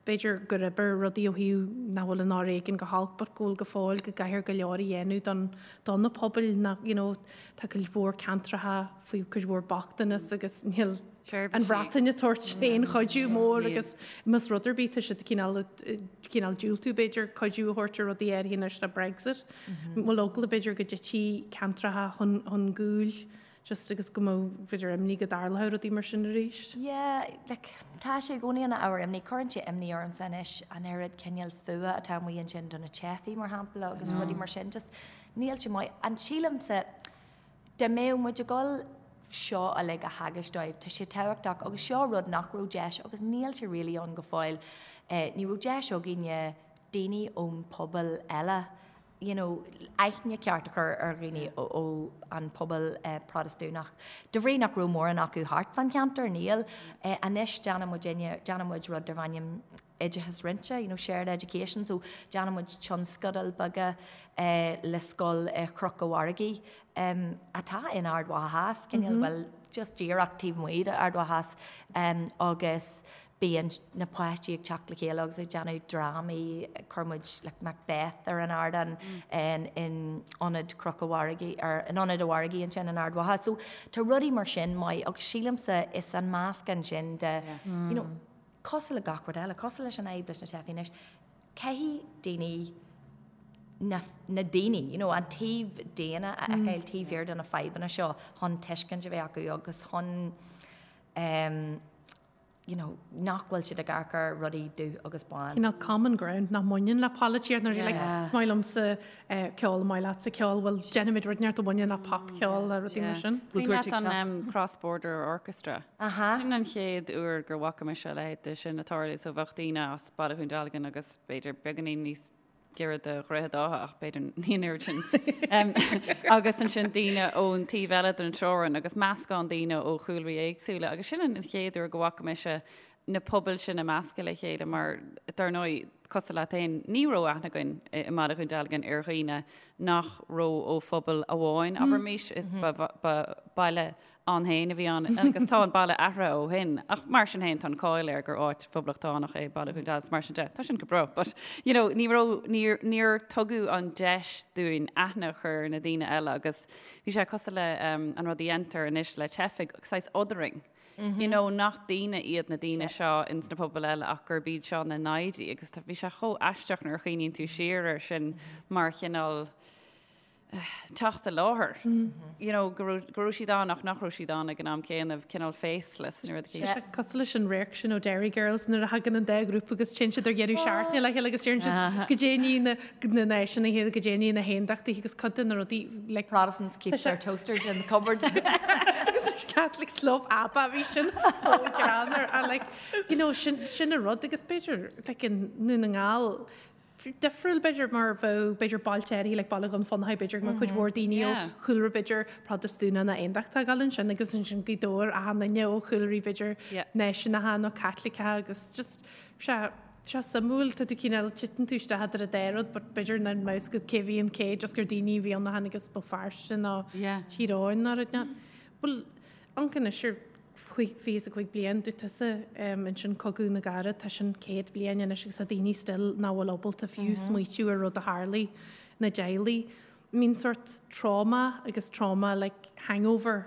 B'fhéidir gur oibir rudaí ó thaobh nach bhfuil an fhoréigean go holc but go bhfuil go fóill go gcaithfear go leor a dhéanamh don do na pobail nach you know tá cuid mhór ceantracha faoi cuid mhór bochtanas agus níl an Bhreatain ag tabhairt aon chuidiú mór agus más rud ar bith tá siad cineál cineál diúltú b'fhéidir cuidiú a thabhairt ar rudaí áirithe anois le Brexit. Bhfuil eagla b'fhéidir go dtitfidh ceantracha chun chun gcúil Just agus go mbeadh b'fhéidir imní go dtarlódh rudaí mar sin arís. Yeah, like, tá sé i gcónaí ina ábhar imní. Cuireann sé imní ormsa anois an oiread cineál fuath atá amuigh ansin do na teifigh, mar shampla, agus rudaí mar sin. Just níl sé maith. And sílimse, dá mbeadh muid ag dul seo uilig a theagasc dóibh, tá sé tábhachtach agus seo rud nach raibh deis agus níl sé really ann go fóill, eh, ní raibh deis againne daoine ón pobal eile you know, aithne ceart a chur ar dhaoine ó an pobal Protastúnach. De bhrí nach raibh mórán acu thart fán cheantar, níl. Anois déanann muidinne, déanann muid rud darb ainm oideachas roinnte, you know, shared education, so déanann muid tionscadail beaga le scoil i Chnoc an Mhargaidh atá in Ard Mhacha Theas, cineál, bhuel, just díreach taobh amuigh d'Ard Mhacha Theas, agus Bíonn na páistí ag teacht le chéile agus ag déanamh drámaí, chuir muid like Macbeth ar an ardán in Ionad Chnoc an Mhargaidh, ar in Ionad an Mhargaidh ansin in Ard Mhacha. So tá rudaí mar sin maith agus sílimse is an meascán sin de you know cosúil le gach rud eile, cosúil leis an fhadhb leis na teifigh anois, caithfidh daoine na na daoine, you know, an taobh daonna a fheiceáil taobh thiar de na fadhbanna seo chun tuiscint a bheith acu agus chun um, you know, nach bhfuil siad ag amharc ar rudaí dubh agus bán. Cineál common ground nach mbaineann le polaitíocht nuair like, is maith liomsa eh, ceol, maith leatsa ceol, bhuel déanfaimid rud inteacht a bhaineann le popcheol le rudaí mar sin. Cuimhin leat an um, Cross Border Orchestra? Aha. Sin an chéad uair gur bhfaca mise a leithéid de sin ag tarlú, so bheadh daoine as Baile Dhún Dealgan agus b'fhéidir beagáinín níos giorra do Dhroichead Átha ach b'fhéidir ní an oiread sin. Agus ansin daoine ón taobh eile den teorainn agus meascán daoine ó chúlraí éagsúla agus sin an chéad uair go bhfaca mise na pobail sin a meascadh le chéile mar, dar ndóigh, cosúil leat féin, ní raibh aithne againn i mBaile Dhún Dealgan ar dhaoine nach raibh ó phobal amháin, abraimis, ba baile ann féin a bhí ann agus tá an baile athraithe ó shin ach mar sin féin tá an cáil air gur áit phoblachtánach é Baile Dhún Dealgan mar sin de, tá sin go breá but you know ní raibh, níor, níor tugadh an deis dúinn aithne a chur ar na daoine eile agus bhí sé cosúil le an rud a dhéantar anois le teifigh, saghas othering. You know, nach daoine iad na daoine seo ins na pobail eile ach gurb iad seo na naimhde agus bhí sé chomh aisteach nuair a chuimhníonn tú siar air sin mar chineál teacht i láthair. You know, go raibh, go raibh siad ann ach nach raibh siad ann ag an am céanna, cineál faceless nó rud éicint. Tá sé cosúil leis an radharc sin ó Derry Girls nuair a thagann an dá ghrúpa agus téann siad ar dheireadh seachtaine le chéile agus deireann siad goidé ní na na náisiúnaithe goidé ní na haontachtaithe agus cuid de na rudaí like Protestants keep their toasters in the cupboard. Agus Catholics love ABBA bhí sin chomh greannmhar ach like you know sin sin an rud agus b'fhéidir like i nDún na nGall difriúil b'fhéidir mar bheadh b'fhéidir bailte áirithe like Baile Dhún Fionnachaidh b'fhéidir go mbeadh cuid mhór daoine ó chúlra b'fhéidir Protastúnach nó Aontachtach ag dul ansin agus ansin Gaoth Dobhair achan duine ó chúlraí b'fhéidir náisiúnacha nó Caitliceacha agus just sé sé suimiúil tá tú cineál titeann tú isteach idir an dá rud but b'fhéidir nach mbeadh fhios agat cé bhí an cé just gur daoine a bhí ann a tháinig as Béal Feirste nó Tír Eoghain nó rud inteacht. Bhuel amharc anois ar 25 bliain, dúirt tusa ansin Cogadh na gCarad, tá sin 100 bliain anois agus tá daoine still nach bhfuil ábalta fiú smaoitiú ar rud a tharlaigh na dteaghlaigh. Mbíonn sort trauma agus trauma like hangover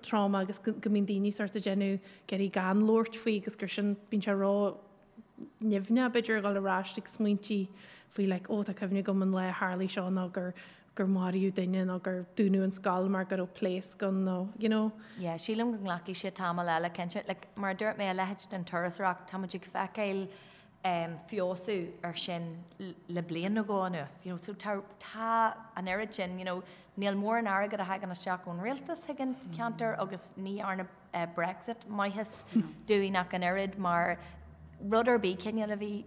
trauma agus go mbíonn daoine sort ag déanamh ag iarraidh gan labhairt faoi agus gur sin bíonn sé ró nimhneach b'fhéidir a dhul ar ais ag smaointí faoi like oh tá cuimhne agam an lá a tharlaigh seo nó gur gur maraíodh duine nó gur dúnadh an scoil mar go raibh pléasc ann nó you know. Yeah, sílim go nglacfaidh sé tamall eile cinnte. Like, mar a dúirt mé, a leithéid den turasóireacht, tá muid ag feiceáil um, feabhsú ar sin le bliain nó dhó anuas. You know, so tá, tá an oiread sin, you know, níl mórán airgead a thagann isteach ón rialtas chuig an ceantar agus ní dhearna Brexit maitheas dúinn ach an oiread mar rud ar bith cineál a bhí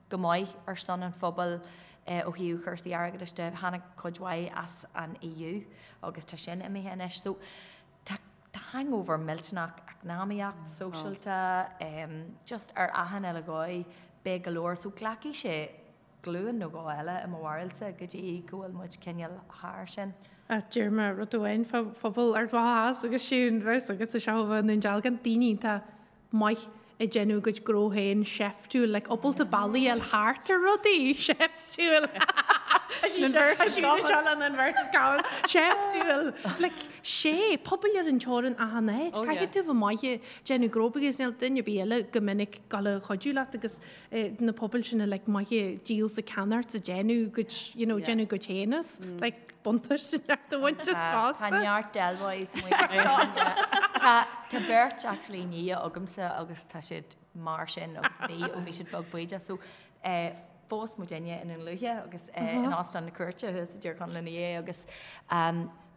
go maith ar son an phobail ó thaobh chúrsaí airgeadais de, tháinig cuid mhaith as an EU agus tá sin imithe anois. So tá tá hangover millteanach eacnamaíocht, sóisialta, just ar achan uile dhóigh, beidh go leor. So glacfaidh sé glúin nó dhó eile i mo bharúilsa go dtí go bhfuil muid cineál thar sin. Ach deir mé rud amháin fá phobal Ard Mhacha Theas agus siún bheas agus is ea i nDún Dealgan, daoine iontach maith ag déanamh a gcuid gnó féin seiftiúil, like ábalta bealaí a fháil thart ar rudaí seiftiúil. Inverted commas. Seiftiúil. Like, sé, pobail ar an teorainn achan áit. Caithfidh tú bheith maith ag déanamh gnó because níl duine ar bith eile go minic ag gabháil a chuidiú leat agus na pobail sin like maith ag díol 's ag ceannacht 's ag déanamh a gcuid you know déanamh a gcuid féin as like buntáiste neart a bhaint as fosta. Tá neart Del Boys Tá tá beirt actually nia agamsa agus tá siad mar sin agus bhí ó bhí siad beag bídeach so phós muidinne i nDún Lúiche agus in Óstán na Cúirte thuas i dTír Chonaill ina dhiaidh agus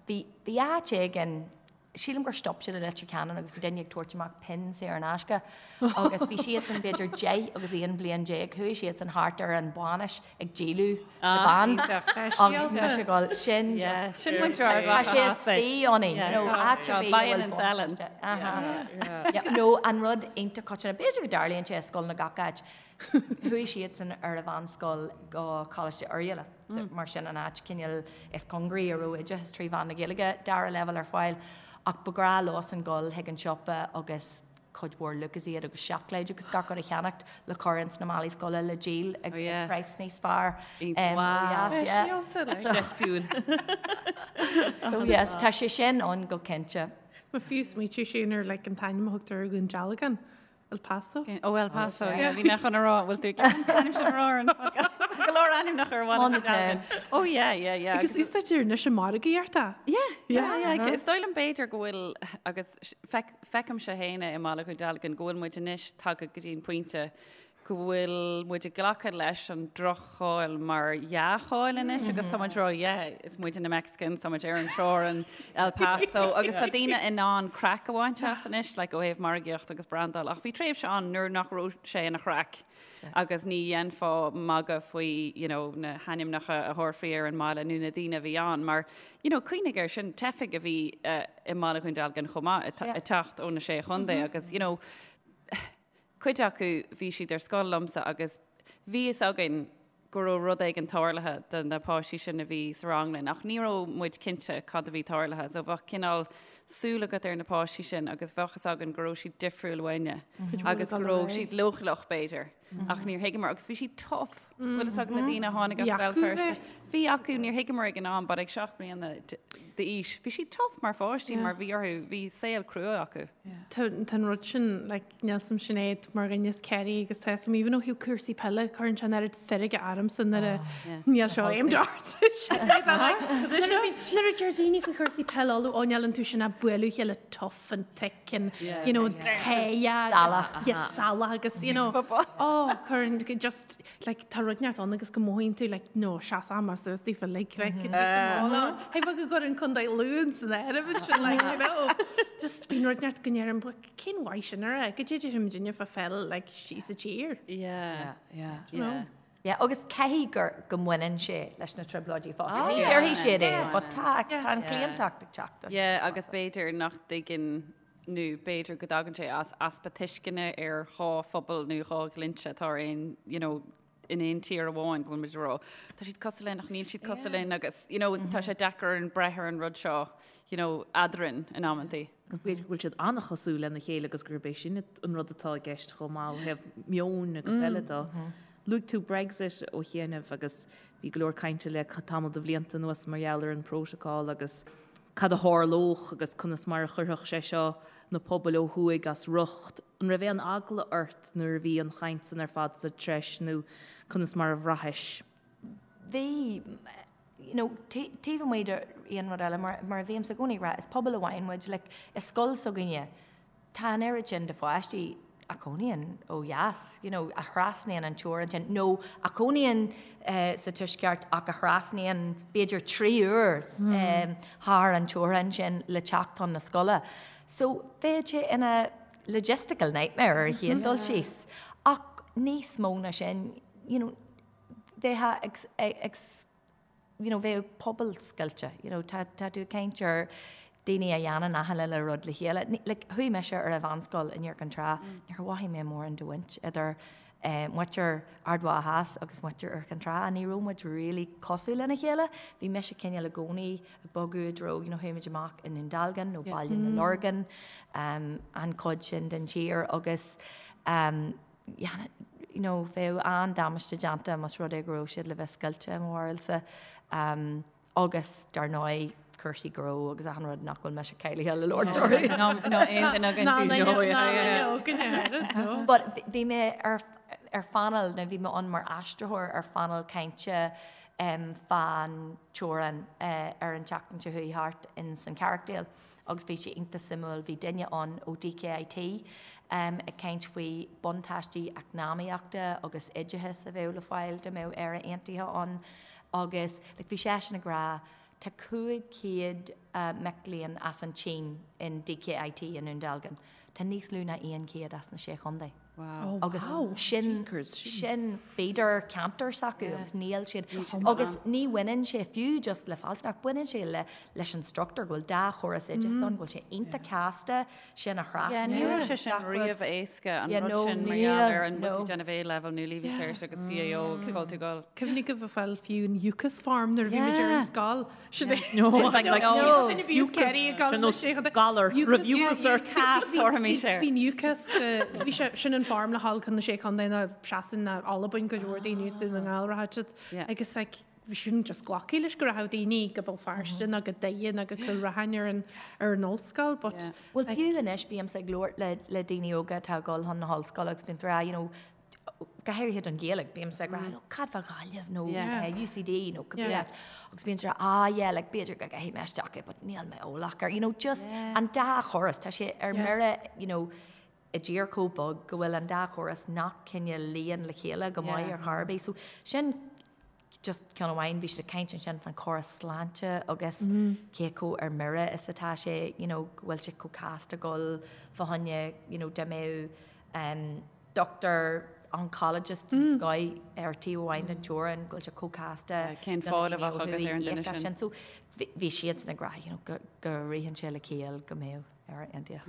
bhí bhí áit éigin sílim gur stop siad i Leitir Ceanainn agus bhí duine ag tabhairt amach pinn saor in aisce agus bhí siadsan b'fhéidir 10 agus 11 bliain, chuaigh siadsan thart ar an bhainis ag díoladh na bpeann agus mise ag dul, sin just, Sin muintir Ard tá sé istigh ionainn, you know, áit ar bith a Buying bhfuil and selling. buntáiste. Yeah, nó an rud iontach coitianta, b'fhéidir go dtarlaíonn sé i scoileanna gach áit, Chuaigh siadsan ar an mheánscoil go Coláiste Oirialla, mar sin an áit cineál is cóngaraí a raibh oideachas trí mheán na Gaeilge dara leibhéal ar fáil, ach ba ghnách leosan dul chuig an siopa agus cuid mhór Lucozade agus seacláid agus gach rud a cheannacht le cur ins na málaí scoile le díol ag praghas níos fearr. Speisialta, like. Seiftiúil. So yes, tá sé sin ann go cinnte. Má fiú smaoitiú sin ar like an t-ainm a thugtar ar Dhún Dealgan. El Paso? Ó El Paso, yeah. Bhí mé chun a rá, bhfuil tú ag an t-ainm sin a rá ar an podcast? Go leor ainmneacha ar bhaile On the Dealgan. Oh yeah, yeah, yeah. Agus úsáidtear anois i margaíocht é. Yeah, yeah, yeah. Is dóigh liom b'fhéidir go bhfuil, agus feicimse féin é i mBaile Dhún Dealgan, go bhfuil muid anois tagtha go dtí an pointe go bhfuil muid ag glacadh leis an droch-cháil mar dhea-cháil anois agus tá muid ag rá yeah, is muide na Mexicans, tá muid ar an teorainn, El Paso agus tá daoine in ann craic a bhaint as anois like ó thaobh margaíocht agus brandáil ach bhí tréimhse ann nuair nach raibh sé ina chraic agus ní dhéanfá magadh faoi you know, na hainmneacha a thabharfaí ar an mbaile nó na daoine a bhí ann mar you know, cuimhnigh air sin teifigh a bhí uh, i mBaile Dhún Dealgan chomh maith ag teacht ó na sé chontae agus you know, Cuid acu bhí siad ar scoil liomsa agus bhí fhios againn go raibh rud éigin tarlaithe do na páistí sin a bhí sa rang linn ach ní raibh muid cinnte cad a bhí tarlaithe so bheadh cineál súil agat ar na páistí sin agus bheadh fhios againn go raibh siad difriúil uainne agus go raibh siad leochaileach b'fhéidir ach níor thuigeamar agus bhí siad tough. Bhfuil fhios agat na daoine a tháinig as Béal Feirste. Bhí acu, níor thuigeamar ag an am but ag 7 mbliana d'aois bhí siad tough mar pháistí mar bhí orthu, bhí saol crua acu. Tá an rud sin like níl 'fhios a'm Sinéad mar dhuine as Ciarraí agus tá 'fhios a'm even ó thaobh cúrsaí peile cuireann sé an oiread feirge ormsa nuair a níl seo aimed ort nuair a deir daoine faoi chúrsaí peile Uladh ó níl iontu sin ach bualadh a chéile tough and thick and you know salach salach agus you know oh cuireann just like tá rud neart ann agus go mothaíonn tú like no seas ama suas daofa like like Hei go gcuireann Contae Lú san áireamh ansin like you know just bíonn rud neart go ndeirim cén mhaith sin a rá go dté deirim duine fá pheil like síos sa tír. Yeah yeah yeah. Yeah, agus caithfidh gur go mbaineann sé leis na trioblóidí fosta. Ní déarfaidh siad é, but tá tá an claontacht ag teacht. Yeah, agus b'fhéidir nach dtuigeann nó b'fhéidir go dtagann sé as easpa tuisceana ar dhá phobal nó dhá dhlínse atá ar aon, you know, in aon tír amháin go bhfuil muid ag rá tá siad cosúil linn ach níl siad cosúil linn agus you know, tá sé deacair orainn breith ar an rud seo you know, eadrainn in amantaí. Agus b'fhéidir go bhfuil siad an-chosúil lena chéile agus gurb é sin an rud atá i gceist chomh maith ó thaobh meoin agus eile de. Luaigh tú Brexit ó chianaibh agus bhí go leor cainte le tamall de bhlianta anuas mar gheall ar an bprótacál agus cad a tharlódh agus conas mar a chuirfeadh sé seo na pobail ó thuaidh as riocht. An raibh aon eagla ort nuair a bhí an chaint san ar fad sa treis nó conas mar a bhraithis? Bhí, you know, taobh amuigh de aon rud eile, mar, mar a bhímse i gcónaí ag rá, is pobal amháin muid, like, i scoil s'againne, tá an oiread sin de pháistí a chónaíonn ó dheas, you know, a thrasnaíonn an teorainn sin, nó a chónaíonn sa tuaisceart ach a thrasnaíonn b'fhéidir 3 uair thar an teorainn sin le teacht chun na scoile. So bheadh sé ina logistical nightmare ar an chéad dul síos. Ach níos mó ná sin, you know, bheifeá ag, ag, you know, bheadh pobal scoilte, you know, tá, tá tú ag caint ar daoine a dhéanann achan uile rud le chéile. Like, chuaigh mise ar an mheánscoil in Iúr Cinn Trá, níor mhothaigh mé mórán de bhaint idir eh, muintir Ard Mhacha Theas agus muintir Iúr Cinn Trá, ní raibh muid really cosúil lena chéile. Bhí mise cineál i gcónaí ag bogadh i dtreo, you know, chuaigh muid amach i nDún Dealgan nó Baile na Lorgan, um, an chuid sin den tír agus um, you know, bheadh an-damáiste déanta más rud é go raibh siad le bheith scoilte i mo bharúilsa. Um, agus dar ndóigh cúrsaí gnó agus achan rud nach bhfuil mise cáilithe le labhairt orthu. Ná aon duine againn. But bhí mé ar ar phainéal, nó bhí mé ann mar aistritheoir ar phainéal cainte um, fán teorainn uh, ar an tseachtain seo chuaigh thart in san Carrickdale. agus bhí sé iontach suimiúil, bhí duine ann ó DKIT ag caint faoi buntáistí eacnamaíochta agus oideachais a bheadh le fáil dá mbeadh Éire Aontaithe ann agus like bhí seisean ag rá tá 500 mic léinn as an tSín in DKIT i nDún Dealgan, tá níos lú ná 100 as na Sé Chontae. Wow. Agus sin sin feeder ceantar s'acu agus níl siad agus ní bhaineann sé fiú just le fealsúnacht, baineann sé le leis an struchtúr go bhfuil dá chóras oideachais ann, go bhfuil sé iontach casta sin a thrasnú. Ní raibh sé sin riamh éasca an rud sin mar gheall ar an bhfuil tú déanamh A-level nó Leaving Cert agus CAO agus cá bhfuil tú ag dul. Cuimhnigh go bhfuil fáil fiú an UCAS form nuair a bhí muid ar an scoil. Sin é. No, like, like, no. Duine bhí Kerry ag gabháil Sin nós galar, raibh UCAS ort. Bhí an UCAS go, bhí sé, sin an form le dhul chun na Sé Chontae nó Sasain nó Albain go leor daoine is Dún na nGall rachadh siad. Agus like, bhí sin just glacadh leis go rachadh daoine go Béal Feirste nó go Doire nó go Cúil Raithin ar an ar an ollscoil but Bhuel fiú anois bímse ag labhairt le le daoine óga atá ag dul chun na hollscoile agus bíonn rá, you know, go háirithe don Ghaeilge, bímse ag rá, oh, cad fá Ghaillimh nó UCD nó cibé áit. Agus bíonn siad ag rá, ah yeah, like b'fhéidir go gcaithfidh mé isteach é, but níl mé eolach air. You know, just an dá chóras, tá sé ar mire, you know, i dtír chomh beag go bhfuil an dá chóras nach cineál luíonn le chéile go maith ar chor ar bith. So sin just ceann amháin, bhí siad ag caint ansin fán chóras sláinte agus cé chomh ar mire is atá sé, you know, go bhfuil sé chomh casta dul fá choinne, you know, dá mbeadh um, doctor oncologist den scoth ar taobh amháin den teorainn, go bhfuil sé chomh casta Cén fáil a bheadh agat ar an duine sin? So bhí siadsan ag rá, you know, go, go ritheann sé le ciall go mbeadh. Éire Aontaithe.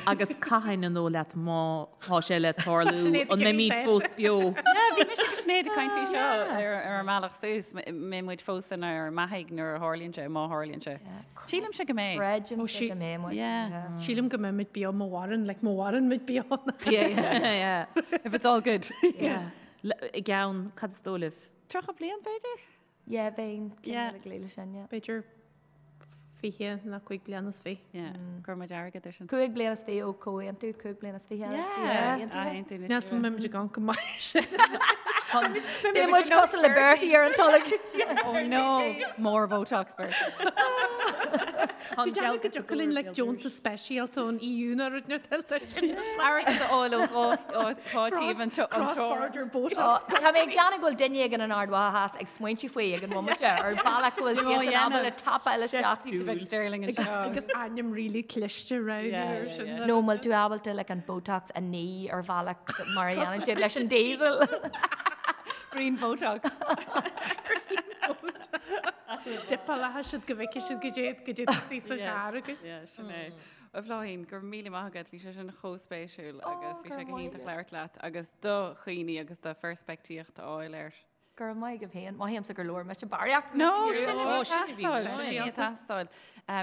Agus cathain an dóigh leat má tá sé le tarlú, an mbeimid fós beo? Yeah, bhí mise agus Sinéad ag caint faoi seo ar ar an mbealach suas, mbeidh muid fós inár mbeathaigh nuair a tharlaíonn sé, má tharlaíonn sé. Sílimse go mbeidh. Creidimse go mbeidh muid. Yeah. Sílim go mbeidh muid beo má mhaireann, like má mhaireann muid beo. Yeah, yeah. If it's all good. Yeah. I gceann, cad is dóigh libh? 30 bliain, b'fhéidir? Yeah, bheinn cineál ag luí leis sin, yeah. B'fhéidir 20 nó 5 bliana is fiche. Yeah, go raibh muid airgead ar sin. 5 bliana is fiche ó comhaontú, 5 bliana is fiche Yeah, aontú na Níl 's agam an mbeidh muid ag amharc go maith sin. Beidh muid cosúil le Bertie ar an tolg. Oh no, more Botox Bertie. Tú déanamh go dtiocfadh linn like deontas speisialta ón EU nó rud nó tuillte sin. Airgead a fháil ó dhá taobh an Cross-border Botox. Tá mé ag déanamh go bhfuil duine éigin in Ard Mhacha Theas ag smaointiú faoi ag an bhomaite ar bhealach go bhfuil siad san ábalta tapáil isteach. Píosa beag sterling anseo. Agus ainm really cliste roghnú ar sin. Nó an bhfuil tú ábalta like an Botox a ní ar bhealach mar a dhéanann siad leis an diesel. Green Botox. Green Botox. Dipáilfidh siad go bhfeicfidh siad goidé goidé tá sa charr agat. Yeah, sin é. A Bhláithín, go raibh míle maith agat, bhí sé sin chomh spéisiúil agus bhí sé go hiontach labhairt leat agus do chuimhní agus do pheirspictíocht a fháil air. Go raibh maith agaibh féin. Mothaímse gur labhair mise barraíocht. No, sin a bhí ag teastáil, sin a bhí ag teastáil.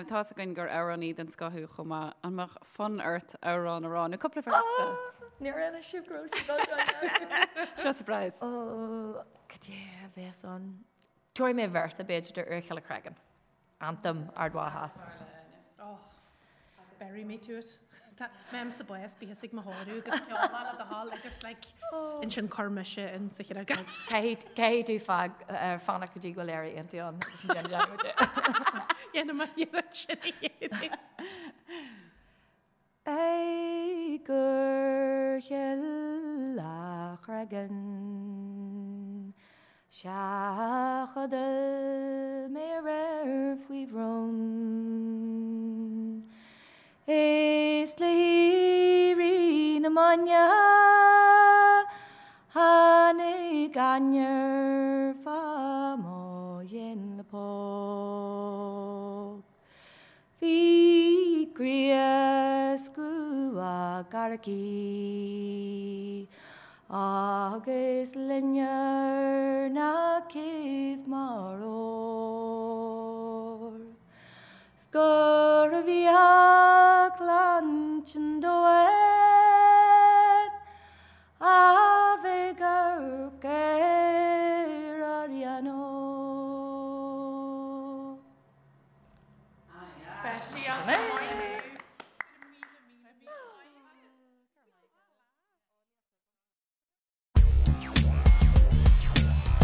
Tá's againn gur amhránaí den scoth thú chomh maith. An mbeadh fonn ort amhrán a rá nó cúpla véarsa? Níor inis sibh go raibh sibh ag dul Seo surprise. Ó, cad é a bheas ann? Tabharfaidh mé véarsa, b'fhéidir, de Úr Chille Creagáin. Anthem Ard Mhacha Theas. Oh, bury me to it. Tá mé sa bás bíos ag mo thórramh agus ceol le do thoil agus like ansin cuir mise in sa chreagán. Caithfidh tú fág fanacht go dtí go bhfuil Éire Aontaithe ann agus an déanfaidh muid é. Dhéanfaidh mé iarracht sin a dhéanamh. Ag Úr Chill a' Chreagain Sea chodail mé aréir faoi bhrón Is le héirí na maidne Tháinig ainnir fá mo dhéin le póg. Bhí gríos grua gearr aici agus loinnir na céibh mar ór. 'S gurbh í a clann sin domhain a bheidh amharc ar Ariano.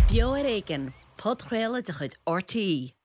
Beo ar Éigean, podchraoladh de chuid RTÉ.